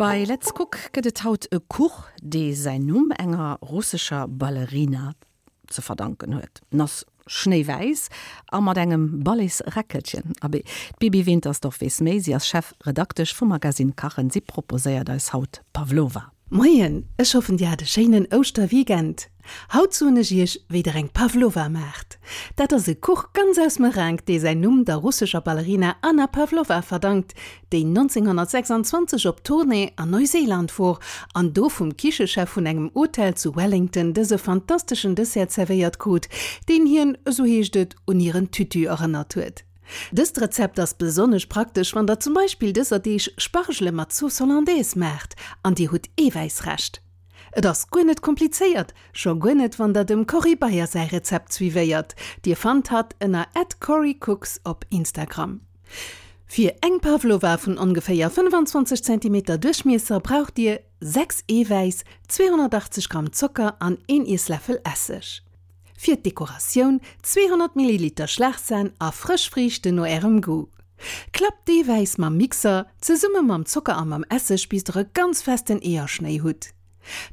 Bei Let's Cook gëtt et haut e Kuch, dee säin Numm enger russescher Ballerina ze verdanken huet. En ass schnéiwäiss a mat engem Balletsräckelchen. Abee, d'Bibi Wintersdorf weess méi, si ass Chefredaktesch vum Magazine Kachen. Si proposéiert eis haut Pavlova. Moien, ech hoffen dir hat e schéinen Ouschterweekend. Haut soen ech iech wéi der eng Pavlova maacht. Dat ass e Kuch ganz aus Meringue, dee säin Numm der russescher Ballerina Anna Pavlova verdankt, déi 1926 op Tournée an Neuseeland wor an do vum Kichechef vun engem Hotel zu Wellington dëse fantasteschen Dessert zerwéiert krut, deen hien, esou heescht et, un hiren Tütü erënnert huet. Dëst Rezept ass besonnesch praktesch, wann der zum Beispill dëser Deeg Spargele mat Sauce Hollandaise maacht an dir hutt Eewäissrescht. Et ass guer net komplizéiert, scho guer net wann der dem Corrie Beyer säi Rezept suivéiert. Dir fannt hatt ënner @corriecooks op Instagram. Fir eng Pavlova vun ongeféier 25 Zentimeter Duerchmiesser braucht dir 6 Eewäiss, 280 Gramm Zocker an een Iessläffel Esseg. Fir d'Dekoratioun 200 Milliliter Schlagsahn a frësch Friichten no ärem Goût. Klappt d'Eewäiss mam Mixer zesumme mam Zocker a mam Esseg bis der e ganz festen Eeërschnéi hutt.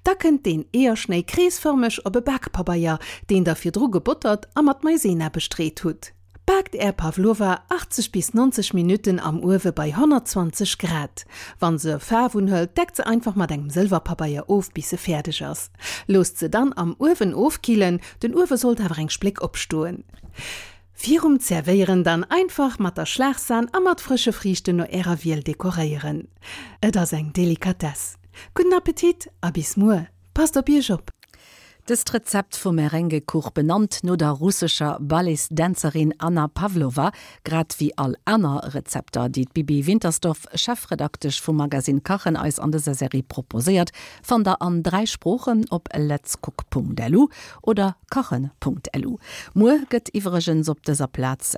Da kënnt deen Eeërschnéi kreesfërmeg op e Bakpabeier, deen der virdru gebottert a mat Maizena bestreet hutt. Baakt är Pavlova 80 bis 90 Minutten am Uewe bei 120 Grad. Wann se Faarf unhëlt, deckt se einfach mat engem Sëlwerpabeier of bis se fäerdeg ass. Loosst se dann am Uewen ofkillen, den Uewe sollt awer eng Spléck opstoen. Virum Zerwéieren dann einfach mat der Schlagsahn a mat frësche Friichten no ärer Wiel dekoréieren. Et ass eng Delikatess. Gudden Appetit a bis muer! Passt op iech op! Dëst Rezept vum Merengue-Kuch, benannt no der russescher Balletsdänzerin Anna Pavlova, grad wéi all aner Rezepter, déi d'Bibi Wintersdorf, Chefredaktesch vum Magazine Kachen, eis an dëser Serie proposéiert, fannt der an 3 Sproochen op letscook.lu oder kachen.lu. Muer gëtt iwwregens op dëser Plaz.